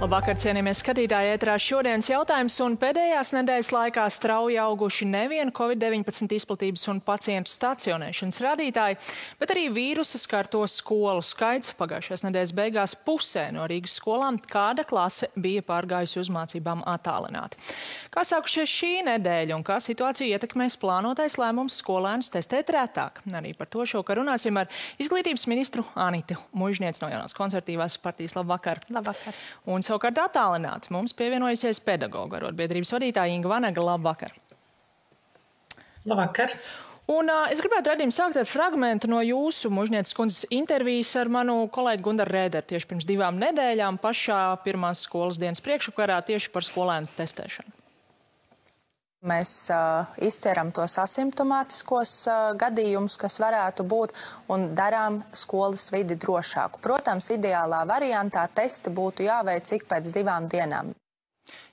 Labvakar, cienījamies skatītāji, ētrā šodienas jautājums un pēdējās nedēļas laikā strauji auguši nevien Covid-19 izplatības un pacientu stacionēšanas rādītāji, bet arī vīrusa skarto skolu skaits. Pagājušās nedēļas beigās pusē no Rīgas skolām kāda klase bija pārgājusi uz mācībām attālināti. Kā sākušies šī nedēļa un kā situācija ietekmēs plānotais lēmums skolēnus testēt retāk? Arī par to šovakar runāsim ar izglītības ministru Anitu Muižnieci no Jaunās konservatīvās partijas. Labvakar. Labvakar. Un savukārt attālināti mums pievienojusies pedagoga arotbiedrības vadītāja Inga Vanaga. Labvakar. Labvakar. Un es gribētu redzēt sākt ar fragmentu no jūsu Muižnieces kundzes intervijas ar manu kolēģi Gundaru Rēderu tieši pirms 2 nedēļām pašā pirmās skolas dienas priekšvakarā tieši par skolēnu testēšanu. Mēs izceram tos asimptomātiskos gadījumus, kas varētu būt, un darām skolas vidi drošāku. Protams, ideālā variantā testi būtu jāveic ik pēc 2 dienām.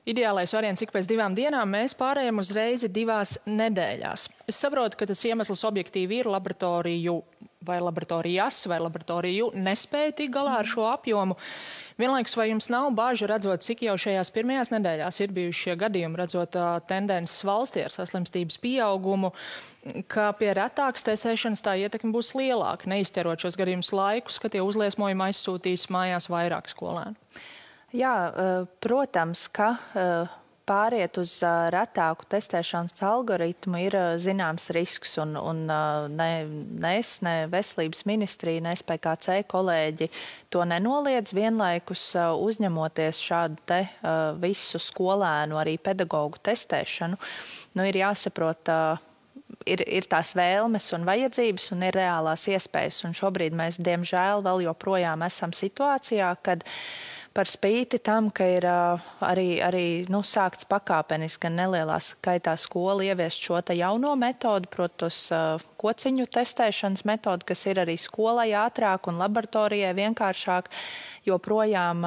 Ideālais variants ik pēc 2 dienām, mēs pārējām uz reizi 2 nedēļās. Es saprotu, ka tas iemesls objektīvi ir laboratoriju vai laboratorijas vai laboratoriju nespēja tik galā ar šo apjomu. Vienlaikus, vai jums nav bāža redzot, cik jau šajās pirmajās nedēļās ir bijuši šie gadījumi, redzot tendences valstī ar saslimstības pieaugumu, ka pie retākas testēšanas tā ietekme būs lielāka, neizķerot šos gadījumus laikus, ka tie uzliesmojumi aizsūtīs mājās vairāk skolēnu? Jā, protams, ka pāriet uz retāku testēšanas algoritmu ir zināms risks, un ne es, ne veselības ministrija, ne SPKC kolēģi to nenoliedz, vienlaikus uzņemoties šādu te visu skolēnu, arī pedagogu testēšanu. Ir jāsaprot, ir tās vēlmes un vajadzības un ir reālās iespējas, un šobrīd mēs, diemžēl, vēl joprojām esam situācijā, kad par spīti tam, ka ir arī sākts pakāpeniski gan nelielā skaitā skola ieviest šo te jauno metodu, protos kociņu testēšanas metodu, kas ir arī skolai ātrāk un laboratorijai vienkāršāk, joprojām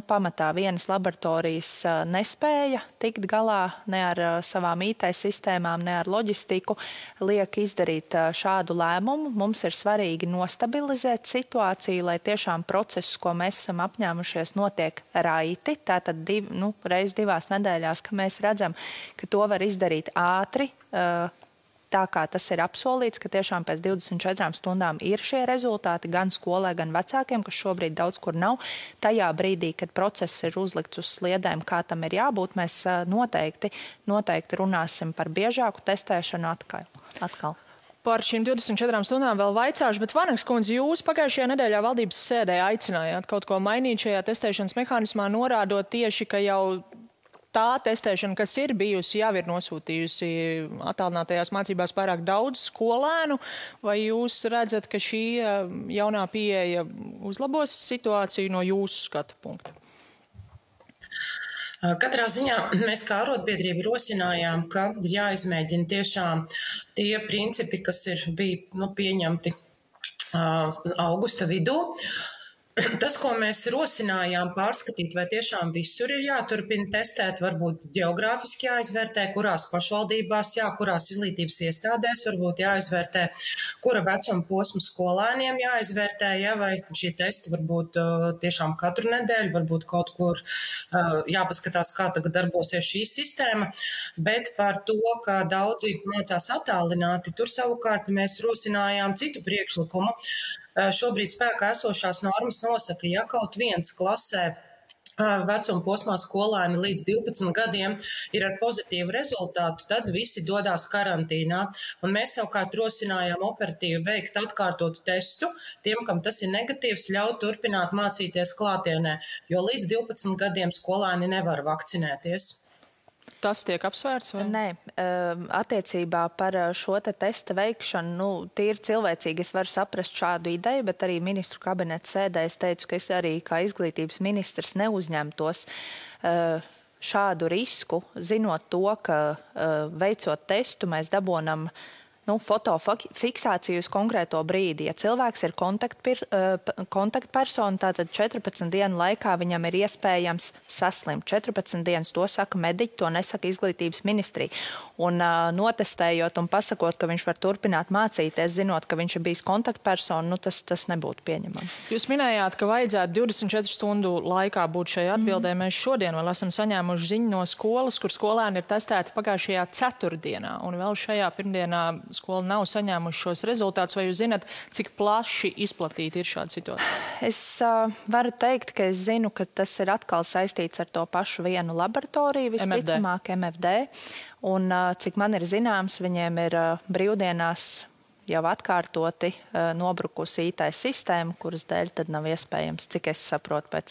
pamatā vienas laboratorijas nespēja tikt galā ne ar savām IT sistēmām, ne ar loģistiku, liek izdarīt šādu lēmumu. Mums ir svarīgi nostabilizēt situāciju, lai tiešām procesus, ko mēs esam apņēmušies, notiek raiti. Tātad reiz 2 nedēļās, ka mēs redzam, ka to var izdarīt ātri, tā kā tas ir apsolīts, ka tiešām pēc 24 stundām ir šie rezultāti gan skolē, gan vecākiem, kas šobrīd daudz kur nav. Tajā brīdī, kad process ir uzlikts uz sliedēm, kā tam ir jābūt, mēs noteikti runāsim par biežāku testēšanu atkal. Par šīm 24 stundām vēl vaicāšu, bet Vanagas kundze, jūs pagājušajā nedēļā valdības sēdē aicinājāt kaut ko mainīt šajā testēšanas mehānismā, norādot tieši, ka jau tā testēšana, kas ir bijusi, jau ir nosūtījusi attālinātajās mācībās pārāk daudz skolēnu, vai jūs redzat, ka šī jaunā pieeja uzlabos situāciju no jūsu skatu punkta? Katrā ziņā mēs kā arotbiedrība rosinājām, ka ir jāizmēģina tiešām tie principi, kas bija pieņemti augusta vidū. Tas, ko mēs rosinājām pārskatīt, vai tiešām visur ir jāturpina testēt, varbūt geogrāfiski jāizvērtē, kurās pašvaldībās, kurās izglītības iestādēs, varbūt jāizvērtē, kura vecuma posma skolēniem jāizvērtē, vai šie testi varbūt tiešām katru nedēļu, varbūt kaut kur jāpaskatās, kā tagad darbosies šī sistēma, bet par to, ka daudzi mācās attālināti, tur savukārt mēs rosinājām citu priekšlikumu. Šobrīd spēkā esošās normas nosaka, ja kaut viens klasē vecuma posmā skolēni līdz 12 gadiem ir ar pozitīvu rezultātu, tad visi dodās karantīnā. Un mēs savukārt rosinājām operatīvi veikt atkārtotu testu tiem, kam tas ir negatīvs, ļaut turpināt mācīties klātienē, jo līdz 12 gadiem skolēni nevar vakcinēties. Tas tiek apsvērts? Vai? Nē, attiecībā par šo te testa veikšanu, tīri cilvēcīgi es varu saprast šādu ideju, bet arī ministru kabineta sēdē es teicu, ka es arī kā izglītības ministrs neuzņemtos šādu risku, zinot to, ka veicot testu mēs dabonam fotofiksāciju uz konkrēto brīdi. Ja cilvēks ir kontaktpersona, tātad 14 dienu laikā viņam ir iespējams saslimt. 14 dienas, to saka mediķi, to nesaka izglītības ministrija. Un notestējot un pasakot, ka viņš var turpināt mācīties, zinot, ka viņš ir bijis kontaktpersona, tas nebūtu pieņemami. Jūs minējāt, ka vajadzētu 24 stundu laikā būt šai atbildē. Mēs šodien vēl esam saņēmuši ziņu no skolas, kur skolēni ir testēti pagājušajā ceturtdienā, un vēl šajā pirmdienā skola nav saņēmuši šos rezultātus. Vai jūs zināt, cik plaši izplatīta ir šāda situācija? Es varu teikt, ka es zinu, ka tas ir atkal saistīts ar to pašu vienu laboratoriju, visticamāk MFD. Un cik man ir zināms, viņiem ir brīvdienās jau atkārtoti nobrukusi IT sistēma, kuras dēļ tad nav iespējams, cik es saprotu pēc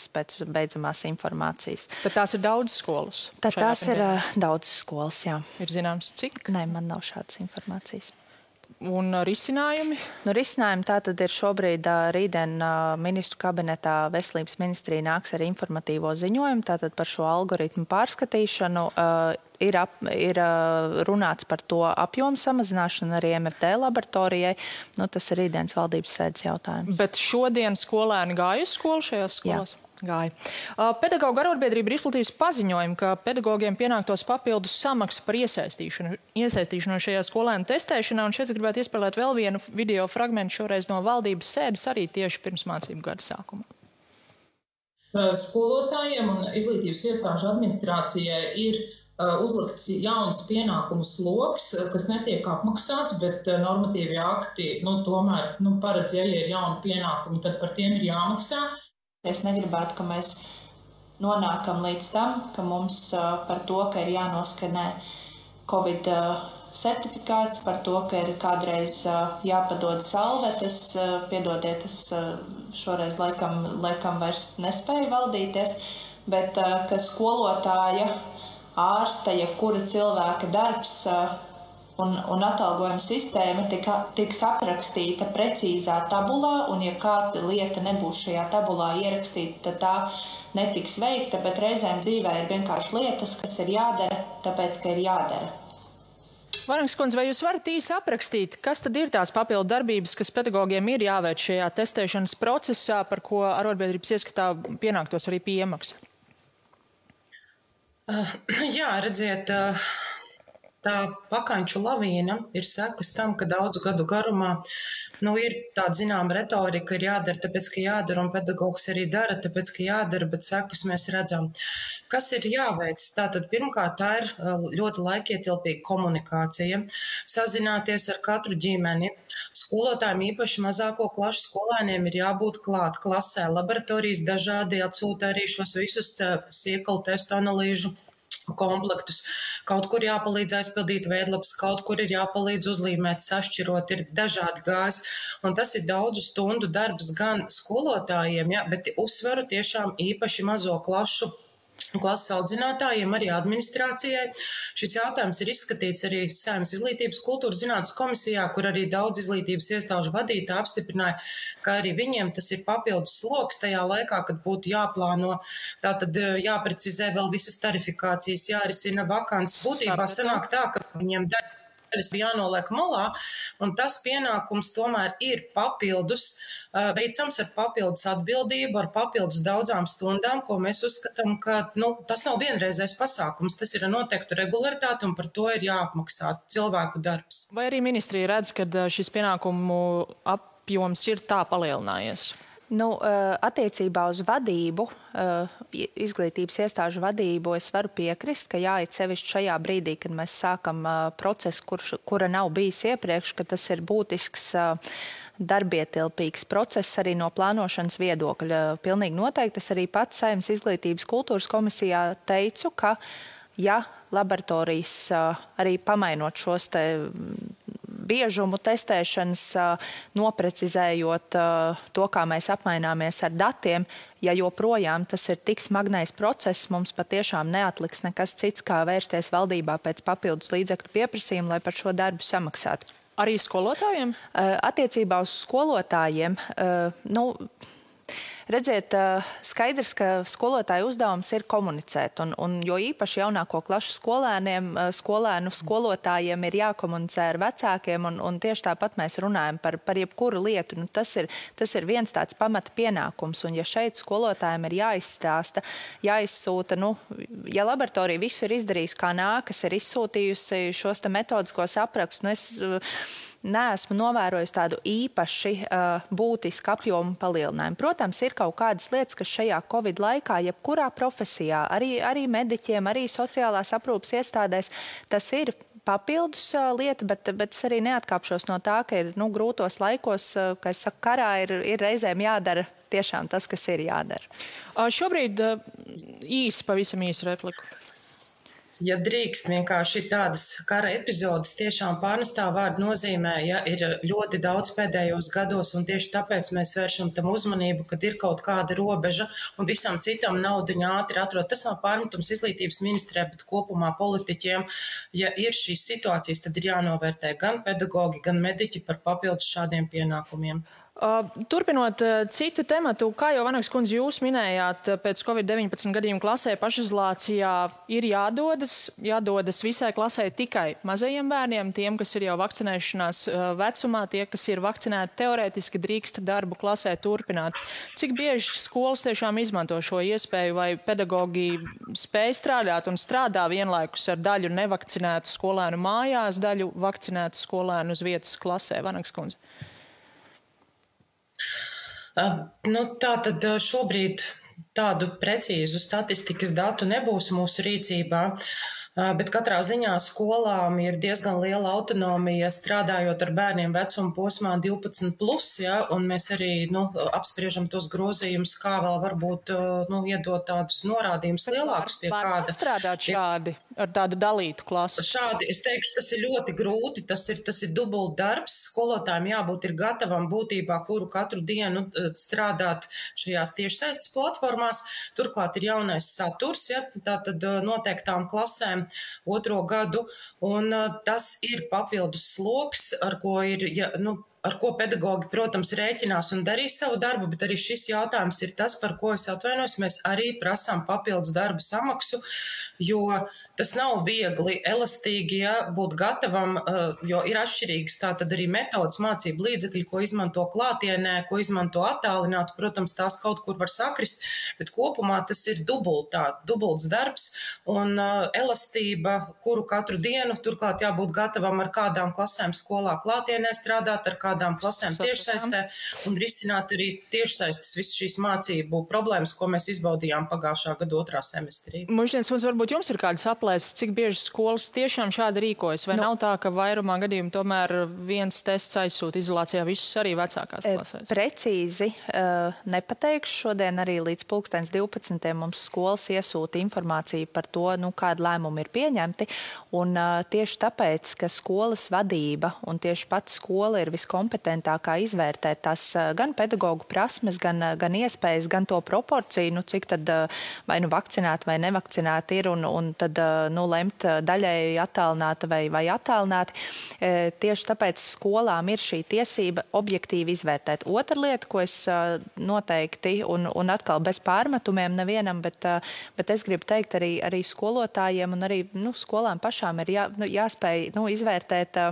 beidzamās informācijas. Tad tās ir daudz skolas? Tad tās ir daudz skolas, jā. Ir zināms, cik? Nē, man nav šādas informācijas. Un risinājumi? Risinājumi tātad ir šobrīd rītdien ministru kabinetā veselības ministrija nāks ar informatīvo ziņojumu, tātad par šo algoritmu pārskatīšanu. Ir runāts par to apjomu samazināšanu arī MFD laboratorijai. Tas ir rītdienas valdības sēdes jautājums. Bet šodien skolēni gāja uz skolu šajās skolās? Jā. Gāja. Pedagoģu arotbiedrība ir izplatījusi paziņojumu, ka pedagogiem pienāktos papildus samaksa par iesaistīšanu šajā skolēnu testēšanā, un šeit gribētu iespēlēt vēl vienu video fragmentu šoreiz no valdības sēdes arī tieši pirms mācību gada sākuma. Skolotājiem un izglītības iestāžu administrācijai ir uzlikts jauns pienākumu sloks, kas netiek apmaksāts, bet normatīvi akti tomēr paredz, ja ir jauni pienākumi, tad par tiem ir jāmaksā. Es negribētu, ka mēs nonākam līdz tam, ka mums par to, ka ir jānoskanē Covid certifikāts, par to, ka ir kādreiz jāpadod salvetes, piedodiet, es šoreiz laikam vairs nespēju valdīties, bet ka skolotāja, ārsta, jebkura cilvēka darbs un atalgojuma sistēma tiks aprakstīta precīzā tabulā, un ja kāda lieta nebūs šajā tabulā ierakstīta, tad tā netiks veikta, bet reizēm dzīvē ir vienkārši lietas, kas ir jādara, tāpēc, ka ir jādara. Varangas kundze, vai jūs varat īsi aprakstīt, kas tad ir tās papildu darbības, kas pedagogiem ir jāveic šajā testēšanas procesā, par ko arotbiedrības ieskatā pienāktos arī piemaksa? Jā, redziet, tā pakaņču lavīna ir sekas tam, ka daudzu gadu garumā ir tāda zināma retorika, ir jādara, tāpēc, ka jādara, un pedagogs arī dara, tāpēc, ka jādara, bet sekas mēs redzam. Kas ir jāveic? Tātad pirmkārt, tā ir ļoti laikietilpīga komunikācija, sazināties ar katru ģimeni. Skolotājiem, īpaši mazāko klašu skolēniem, ir jābūt klāt klasē. Laboratorijas dažādi atsūta arī šos visus siekalu testu analīžu komplektus. Kaut kur jāpalīdz aizpildīt veidlapas, kaut kur ir jāpalīdz uzlīmēt, sašķirot, ir dažādi gājs. Un tas ir daudzu stundu darbs gan skolotājiem, bet uzsveru tiešām īpaši mazo klases audzinātājiem, arī administrācijai. Šis jautājums ir izskatīts arī Saeimas izglītības kultūras zinātnes komisijā, kur arī daudz izglītības iestāžu vadītāji apstiprināja, ka arī viņiem tas ir papildus sloks tajā laikā, kad būtu jāplāno, tātad jāprecizē vēl visas tarifikācijas, jārisina vakants. Būtībā sanāk tā, ka viņiem daļas jānoliek malā, un tas pienākums tomēr ir papildus, veicams ar papildus atbildību, ar papildus daudzām stundām, ko mēs uzskatām, ka tas nav vienreizais pasākums, tas ir noteikta regularitāte, un par to ir jāapmaksā cilvēku darbs. Vai arī ministrija redz, ka šis pienākumu apjoms ir tā palielinājies? Attiecībā uz vadību, izglītības iestāžu vadību, es varu piekrist, ka jāiet sevišķi šajā brīdī, kad mēs sākam procesu, kura nav bijis iepriekš, ka tas ir būtisks darbietilpīgs process arī no plānošanas viedokļa. Pilnīgi noteikti es arī pats Saeimas izglītības kultūras komisijā teicu, ka ja laboratorijas arī pamainot šos te biežumu testēšanas, noprecizējot to, kā mēs apmaināmies ar datiem, ja joprojām tas ir tik smagnējs process, mums patiešām neatliks nekas cits, kā vērsties valdībā pēc papildus līdzekļu pieprasījuma, lai par šo darbu samaksātu. Arī skolotājiem? Attiecībā uz skolotājiem, Redziet, skaidrs, ka skolotāju uzdevums ir komunicēt, un jo īpaši jaunāko klašu skolēnu skolotājiem ir jākomunicē ar vecākiem, un tieši tāpat mēs runājam par jebkuru lietu. Nu, tas ir viens tāds pamata pienākums, un ja šeit skolotājiem ir jāizstāsta, jāizsūta, ja laboratorija visu ir izdarījis kā nākas, ir izsūtījusi šos te metodiskos aprakstus, es neesmu novērojusi tādu īpaši būtisku apjomu palielinājumu. Protams, ir kaut kādas lietas, kas šajā Covid laikā, jebkurā profesijā, arī mediķiem, arī sociālās aprūpes iestādēs, tas ir papildus lieta, bet es arī neatkāpšos no tā, ka ir grūtos laikos, kā es saku, karā ir reizēm jādara tiešām tas, kas ir jādara. Šobrīd pavisam īsu repliku. Ja drīkst, vienkārši tādas kara epizodes tiešām pārnestā vārda nozīmē, ja ir ļoti daudz pēdējos gados, un tieši tāpēc mēs vēršam tam uzmanību, kad ir kaut kāda robeža, un visam citam naudiņa ātri atrod. Tas nav pārmetums izglītības ministrē, bet kopumā politiķiem. Ja ir šīs situācijas, tad ir jānovērtē gan pedagogi, gan mediķi par papildus šādiem pienākumiem. Turpinot citu tematu, kā jau Vanagas kundze jūs minējāt, pēc Covid-19 gadījumu klasē pašizolācijā ir jādodas visai klasē tikai mazajiem bērniem, tiem, kas ir jau vakcinēšanās vecumā, tie, kas ir vakcinēti, teorētiski drīkst darbu klasē turpināt. Cik bieži skolas tiešām izmanto šo iespēju, vai pedagogi spēj strādāt un strādā vienlaikus ar daļu nevakcinētu skolēnu mājās, daļu vakcinētu skolēnu uz vietas klasē? Vanagas kundze. Tā tad šobrīd tādu precīzu statistikas datu nebūs mūsu rīcībā, bet katrā ziņā skolām ir diezgan liela autonomija strādājot ar bērniem vecuma posmā 12+, ja, un mēs arī apspriežam tos grozījumus, kā vēl varbūt iedot tādus norādījumus lielākus pie kāda. Var strādāt šādi ar tādu dalītu klasu? Šādi, es teikšu, tas ir ļoti grūti, tas ir dubult darbs. Skolotājiem jābūt ir gatavam būtībā, kuru katru dienu strādāt šajās tiešsaistes platformās. Turklāt ir jaunais saturs, ja, tātad noteiktām klasēm 2. gadu, un tas ir papildus sloks, ar ko pedagogi, protams, rēķinās un darīs savu darbu, bet arī šis jautājums ir tas, par ko es atvainojos, mēs arī prasām papildus darba samaksu, jo tas nav viegli, elastīgi, ja, būt gatavam, jo ir atšķirīgas tātad arī metodas mācību līdzekļi, ko izmanto klātienē, ko izmanto attālināti. Protams, tās kaut kur var sakrist, bet kopumā tas ir dubults darbs un elastība, kuru katru dienu, turklāt jābūt gatavam ar kādām klasēm skolā klātienē strādāt, ar kādām klasēm tiešsaistē un risināt arī tiešsaistes visu šīs mācību problēmas, ko mēs izbaudījām pagājušā gada 2. semestrī. Muždienas kundze, varbūt jums ir kādas aplēses, cik bieži skolas tiešām šādi rīkojas, vai nav tā, ka vairumā gadījumu tomēr viens tests aizsūta izolācijā visus arī vecākās klasēs? Precīzi nepateikšu. Šodien arī līdz 12. mums skolas iesūta informāciju par to, kāda lēmuma ir pieņemti, un tieši tāpēc, ka skolas vadība un tieši pati skola ir viskompetentākā izvērtēt tās gan pedagogu prasmes, gan iespējas, gan to proporciju, cik tad vai vakcinēti vai nevakcinēti ir, un tad lemt daļēji attālināti vai attālināti. Tieši tāpēc skolām ir šī tiesība objektīvi izvērtēt. Otra lieta, ko es noteikti, un atkal bez pārmetumiem nevienam, bet es gribu teikt arī skolotājiem un arī skolām pašām ir jāspēj izvērtēt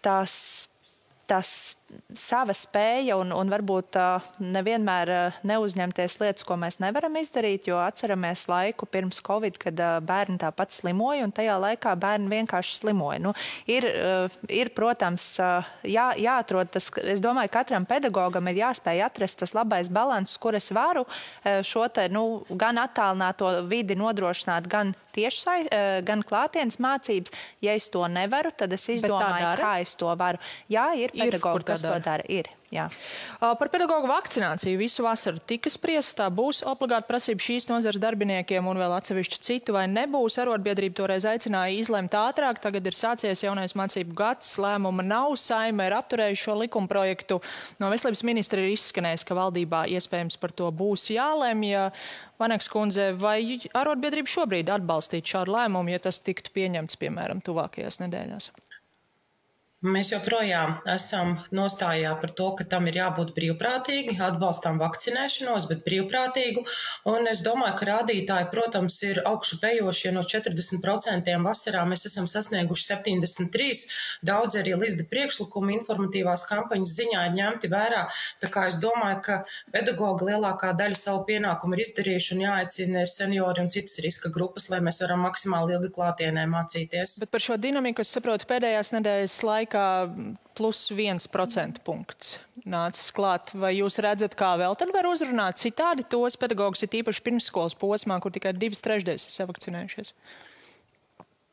tās sava spēja un varbūt nevienmēr neuzņemties lietas, ko mēs nevaram izdarīt, jo atceramies laiku pirms Covid, kad bērni tāpat slimoja, un tajā laikā bērni vienkārši slimoja. Ir, protams, jāatrod tas, es domāju, katram pedagogam ir jāspēj atrast tas labais balans, kur es varu šo te, gan attālināto vidi nodrošināt, gan gan klātienes mācības. Ja es to nevaru, tad es izdomāju, kā es to varu. Jā, ir pedagogi, kas to dara. Ir. Jā. Par pedagogu vakcināciju visu vasaru tika spriests, tā būs obligāta prasība šīs nozares darbiniekiem un vēl atsevišķi citu, vai nebūs. Arotbiedrība toreiz aicināja izlemt ātrāk, tagad ir sācies jaunais mācību gads, lēmuma nav, Saeima ir apturējuši šo likumprojektu. No veselības ministra ir izskanējis, ka valdībā iespējams par to būs jālemj. Vanagas kundze, vai arotbiedrība šobrīd atbalstītu šādu lēmumu, ja tas tiktu pieņemts, piemēram, tuvākajās nedēļās? Mēs joprojām esam nostājā par to, ka tam ir jābūt brīvprātīgi, atbalstām vakcinēšanos, bet brīvprātīgu. Un es domāju, ka rādītāji, protams, ir augšupejoši, jo no 40% vasarā mēs esam sasnieguši 73. Daudz arī līdz priekšlikumi informatīvās kampaņas ziņā ir ņemti vērā. Tā kā es domāju, ka pedagogi lielākā daļa savu pienākumu ir izdarījuši un jāaicina seniori un citas riska grupas, lai mēs varam maksimāli ilgi klātienē mācīties. Bet par šo dinamiku es saprotu pēdējās nedēļas laikā plus 1% punkts nācis klāt. Vai jūs redzat, kā vēl tad var uzrunāt citādi tos pedagogus, ir īpaši pirmsskolas posmā, kur tikai 2/3 ir savakcinējušies?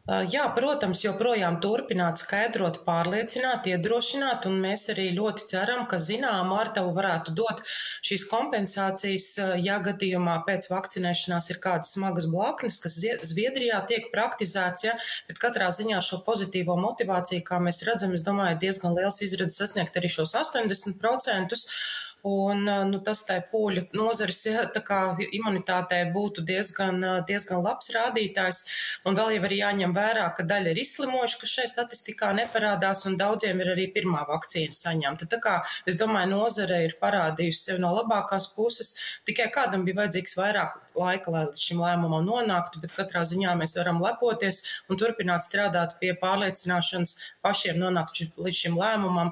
Jā, protams, joprojām turpināt skaidrot, pārliecināt, iedrošināt, un mēs arī ļoti ceram, ka zinām ārtavu varētu dot šīs kompensācijas, ja gadījumā pēc vakcinēšanās ir kādas smagas blaknes, kas Zviedrijā tiek praktizēts, ja, bet katrā ziņā šo pozitīvo motivāciju, kā mēs redzam, es domāju, diezgan liels izredzes sasniegt arī šos 80%. Un tas tai pūļu nozares, ja, tā kā imunitātei būtu diezgan labs rādītājs. Un vēl jau arī jāņem vērā, ka daļa ir izslimojuši, kas šai statistikā neparādās, un daudziem ir arī pirmā vakcīna saņemta. Tā kā, es domāju, nozare ir parādījusi sevi no labākās puses. Tikai kādam bija vajadzīgs vairāk laika, lai līdz šim lēmumam nonāktu, bet katrā ziņā mēs varam lepoties un turpināt strādāt pie pārliecināšanas pašiem nonākt līdz šim lēmumam.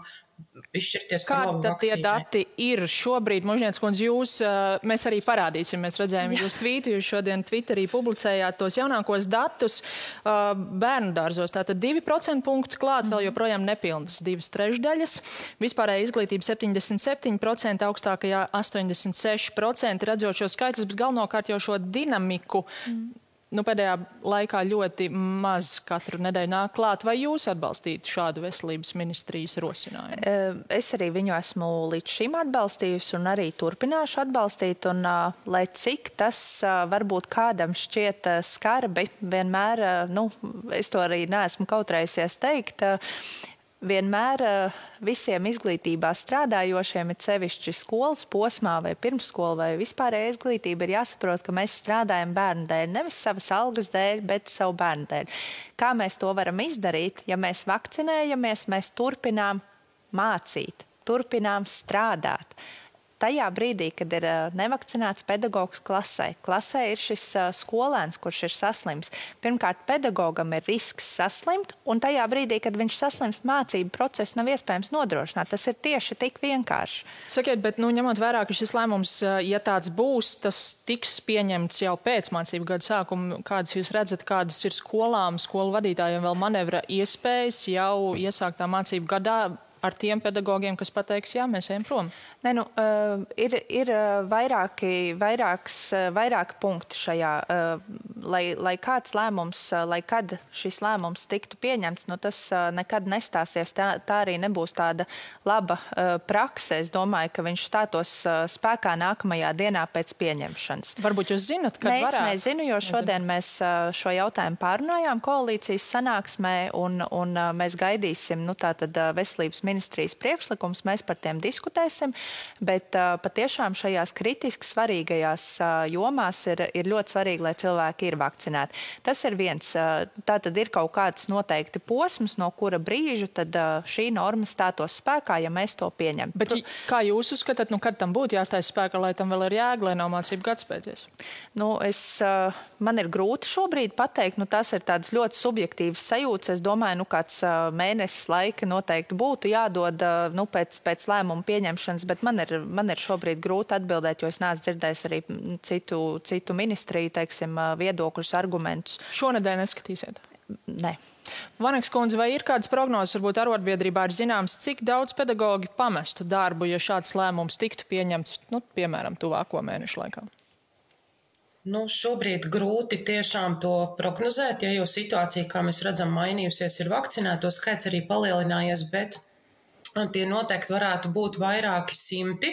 Kādi tad tie dati ir šobrīd? Možņēts kundze, mēs arī parādīsim, mēs redzējām jūs tvītu, jūs šodien Twitterī publicējāt tos jaunākos datus bērnu dārzos. Tātad 2% punktu klāt, vēl joprojām nepilnas 2/3. Vispārēja izglītība 77%, augstākajā 86%, redzot šo skaitļus, bet galvenokārt jau šo dinamiku. Pēdējā laikā ļoti maz katru nedēļu nāk klāt. Vai jūs atbalstītu šādu veselības ministrijas rosinājumu? Es arī viņu esmu līdz šim atbalstījusi un arī turpināšu atbalstīt. Un, lai cik tas varbūt kādam šķiet skarbi, vienmēr, es to arī neesmu kautrējusies teikt, vienmēr visiem izglītībā strādājošiem, ir sevišķi skolas posmā vai pirmsskola vai vispārējā izglītība, ir jāsaprot, ka mēs strādājam bērnu dēļ, nevis savas algas dēļ, bet savu bērnu dēļ. Kā mēs to varam izdarīt? Ja mēs vakcinējamies, mēs turpinām mācīt, turpinām strādāt. Tajā brīdī, kad ir nevakcinēts pedagogs klasē ir šis skolēns, kurš ir saslims. Pirmkārt, pedagogam ir risks saslimt, un tajā brīdī, kad viņš saslimst, mācību procesu nav iespējams nodrošināt. Tas ir tieši tik vienkārši. Sakiet, bet ņemot vērā, ka šis lēmums, ja tāds būs, tas tiks pieņemts jau pēc mācību gada sākuma. Kādas jūs redzat, kādas ir skolām, skolu vadītājiem vēl manevra iespējas jau iesāktā mācību gadā ar tiem pedagogiem, kas pateiks, jā, mēs ejam prom? Ir vairāki punkti šajā, lai kāds lēmums, lai kad šis lēmums tiktu pieņemts, tas nekad nestāsies, tā arī nebūs tāda laba prakse. Es domāju, ka viņš stātos spēkā nākamajā dienā pēc pieņemšanas. Varbūt jūs zinat, kad varētu? Es nezinu, jo šodien mēs šo jautājumu pārunājām koalīcijas sanāksmē, un mēs gaidīsim, tātad veselības ministrijas priekšlikums, mēs par tiem diskutēsim. Bet patiešām šajās kritiski svarīgajās jomās ir ļoti svarīgi, lai cilvēki ir vakcinēti. Tas ir viens. Tātad ir kaut kāds noteikti posms, no kura brīža tad šī norma stātos spēkā, ja mēs to pieņemam. Bet kā jūs uzskatāt, kad tam būtu jāstājas spēkā, lai tam vēl ir jēga, lai nav mācību gads beidzies? Man ir grūti šobrīd pateikt, tās ir tādas ļoti subjektīvas sajūtas. Es domāju, kāds mēnesis laika noteikti būtu jādod pēc lēmuma pieņemšanas, bet man ir šobrīd grūti atbildēt, jo es neesmu dzirdējis arī citu ministriju, viedokļus, argumentus. Šonedēļ neskatīsiet? Nē. Vaneks kundze, vai ir kādas prognozes, varbūt arotbiedrībā ir zināms, cik daudz pedagogi pamestu darbu, ja šāds lēmums tiktu pieņemts, piemēram, tuvāko mēnešu laikā? Šobrīd grūti tiešām to prognozēt, jo situācija, kā mēs redzam, mainījusies, ir vakcinēto skaits arī palielinājies, bet Tie noteikti varētu būt vairāki simti,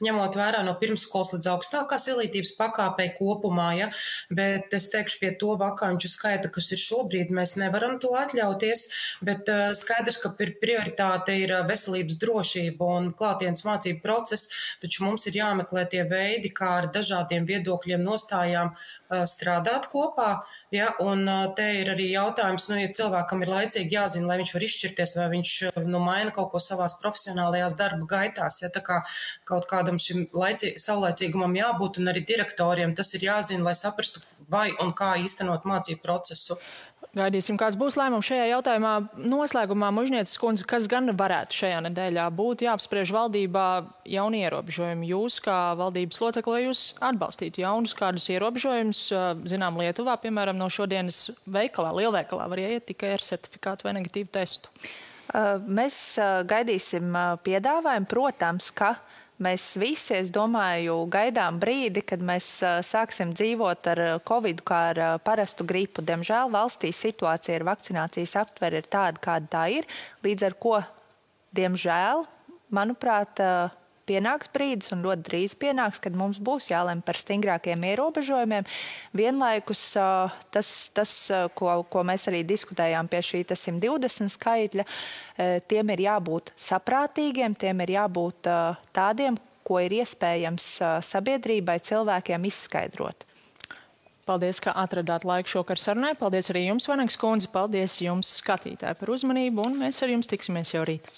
ņemot vērā no pirmsskolas līdz augstākās izglītības pakāpei kopumā, ja? Bet es teikšu, pie to vakanču skaita, kas ir šobrīd, mēs nevaram to atļauties, bet skaidrs, ka prioritāte ir veselības drošība un klātienes mācību process, taču mums ir jāmeklē tie veidi, kā ar dažādiem viedokļiem nostājām strādāt kopā, ja? Un te ir arī jautājums, ja cilvēkam ir laicīgi jāzina, lai viņš var izšķirties, vai viņš maina kaut ko savās profesionālajās darba gaitās, ja? Tā kā kaut kādam šim saulaicīgumam jābūt, un arī direktoriem tas ir jāzina, lai saprastu, vai un kā īstenot mācību procesu. Gaidīsim, kāds būs lēmums šajā jautājumā. Noslēgumā, Mužnieces kundze, kas gan varētu šajā nedēļā būt jāapspriež valdībā jauni ierobežojumi? Jūs, kā valdības locekli, vai jūs atbalstītu jaunus kādus ierobežojumus? Zinām, Lietuvā, piemēram, no šodienas veikalā, lielveikalā var ieiet tikai ar certifikātu vai negatīvu testu. Mēs gaidīsim piedāvājumu, protams, ka mēs visi, es domāju, gaidām brīdi, kad mēs sāksim dzīvot ar Covid kā ar parastu gripu. Diemžēl valstī situācija ar vakcinācijas aptveri ir tāda, kāda tā ir, līdz ar ko, diemžēl, manuprāt, pienāks brīdis un ļoti drīz pienāks, kad mums būs jālem par stingrākiem ierobežojumiem. Vienlaikus tas, ko mēs arī diskutējām pie šī 120 skaitļa, tiem ir jābūt saprātīgiem, tiem ir jābūt tādiem, ko ir iespējams sabiedrībai, cilvēkiem izskaidrot. Paldies, ka atradāt laiku šokar sarunai. Paldies arī jums, Vanegas kundze. Paldies jums, skatītāji, par uzmanību, un mēs ar jums tiksimies jau rīt.